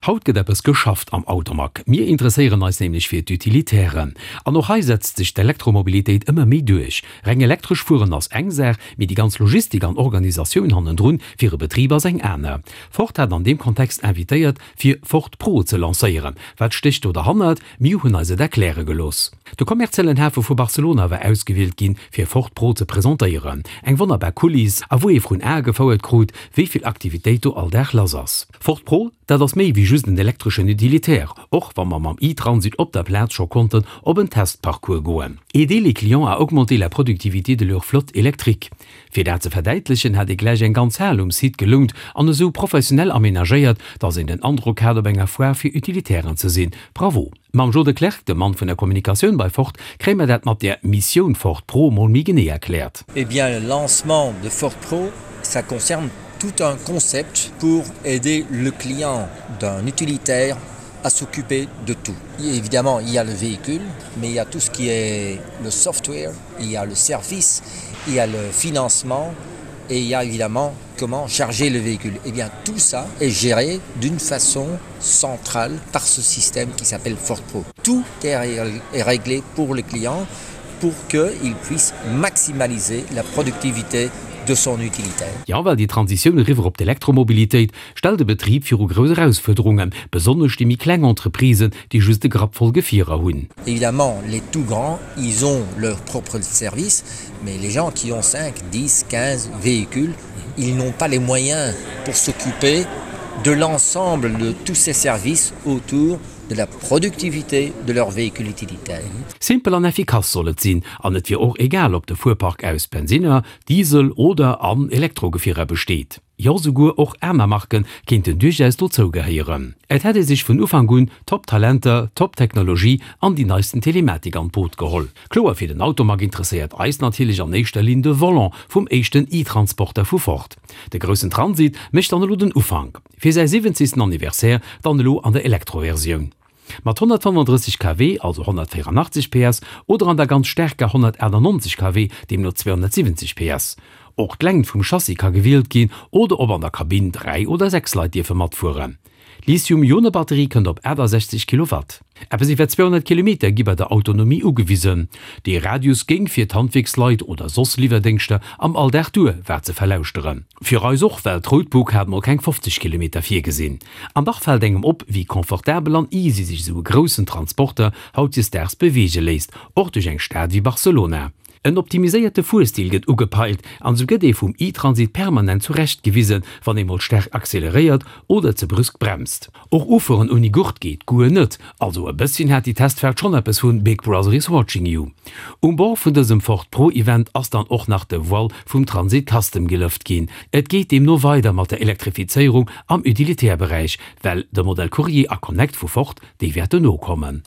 Haut gëtt eppes geschafft am Automag. Mir interesséieren eis nämlech fir d'Utilitairen. An och hei setzt sech d'Elektromobilitéit ëmmer méi duerch. Reng elektresch fueren ass eng Saach, mee déi ganz Logistik an Organisatioun hannendrun fir e Betrib ass eng aner. Ford hat an deem Kontext invitéiert, fir Ford Pro ze lancéieren. Wat stécht do derhannert? Mir hunn eis et erkläre gelooss. De kommerziellen Hafe vu Barcelona war ausgewielt ginn, fir Ford Pro ze presentéieren. Eng wonnerbar Kuliss, a wou ee vrun Ae gefouert krut, wéi vill Aktivitéit do all Dag lass ass. Ford Pro, dat ass méi wéi just en elektreschen Utilitaire, och wa mer mam e-Transit op der Plaz scho konnten op en Testparcours goen. Aider les clients à augmenter la productivité de leur flotte électrique. Fir dat ze verdäitlechen, hat ee gläich eng ganz Hal um Site gelount an esou professionell amenagéiert, dass een den Androck hat, op enger Foire fir Utilitairen ze sinn. Bravo! Mam Jo de Klerk, dem Mann vun der Kommunikatioun bei Ford, kréie mer dat mat der Missioun Ford Pro mol méi genee erkläert. Eh bien, le lancement de Ford Pro, ça concerne tout un concept pour aider le client d'un utilitaire à s'occuper de tout. Évidemment, il y a le véhicule, mais il y a tout ce qui est le software, il y a le service, il y a le financement et il y a évidemment comment charger le véhicule. Et eh bien tout ça est géré d'une façon centrale par ce système qui s'appelle Ford Pro. Tout est réglé pour le client pour qu'il puisse maximaliser la productivité de son utilitaire. Ja well déi Transitioun eriwwer op d'Elektromobilitéit stellt de Betrib viru grouss Erausfuerderungen, besonnesch déi méi kleng Entreprisen, déi just e Grapp voll Gefierer hunn. Évidemment, les tout grands, ils ont leur propre service, mais les gens qui ont 5, 10, 15 véhicules, ils n'ont pas les moyens pour s'occuper de l'ensemble de tous ces services autour de la productivité de leur véhicule utilitaire. Simpel an effikass soll et sinn, an et wier och egal ob de Fuerpark aus Bensinner, Diesel oder an Elektrogefierer besteet. Jo souguer och aner Marke kéinten duerchaus dozou gehéieren. Et hätt ee sech vun Ufank un Top Talenter, Top Technologie an déi neisten Telematik an d'Boot geholl. Kloer fir den Automag interesséiert eis natierlech an éischter Linn de Volant vum éischten e-Transporter vu Ford. De groussen Transit mécht dann elo den Ufank. Fir säi siwwenzegsten Anniversaire dann elo an der Elektroversioun. Mat 135 kW, also 184 PS, oder an der ganz staarker 198 kW, deemno 270 PS. Och d'Längt vum Chassis ka gewielt ginn oder ob an der Kabinn 3 oder 6 Leit dierfe matfueren. D'Lithium-Ione-Batterie kënnt op 68 Kilowatt. Eppes iwwer 200 Kilometer gi bei der Autonomie ugewisen. Dee Radius géing fir d'Handwierksleit oder soss Liwwerdéngschter am Alldag duer, war ze verlauschteren. Fir eis och, well d'Roadbook hat mol keng 50 Kilometer virgesinn. An dach fält engem op, wéi confortabel an easy sech esou e groussen Transporter hautdesdaags beweege léisst, och duerch eng Stad wéi Barcelona. En optimiséierte Fuerstil gëtt ugepeilt an esou gëtt ee vum e-Transit permanent zurecht gewisen, wann ee mol staark acceleréiert oder ze brüsk bremst. Och ufueren ouni Gurt geet guer net, also e bësschen hat déi Testfaart schonn eppes vun Big Brother is watching you. Um Bord vun dësem Ford Pro Event ass dann och nach de Voile vum Transit Custom gelëft ginn. Et geet deemno weider mat der Elektrifizéierung am Utilitaire-Beräich, well de Modell Courier a Connect vu Ford, déi wäerten nokommen.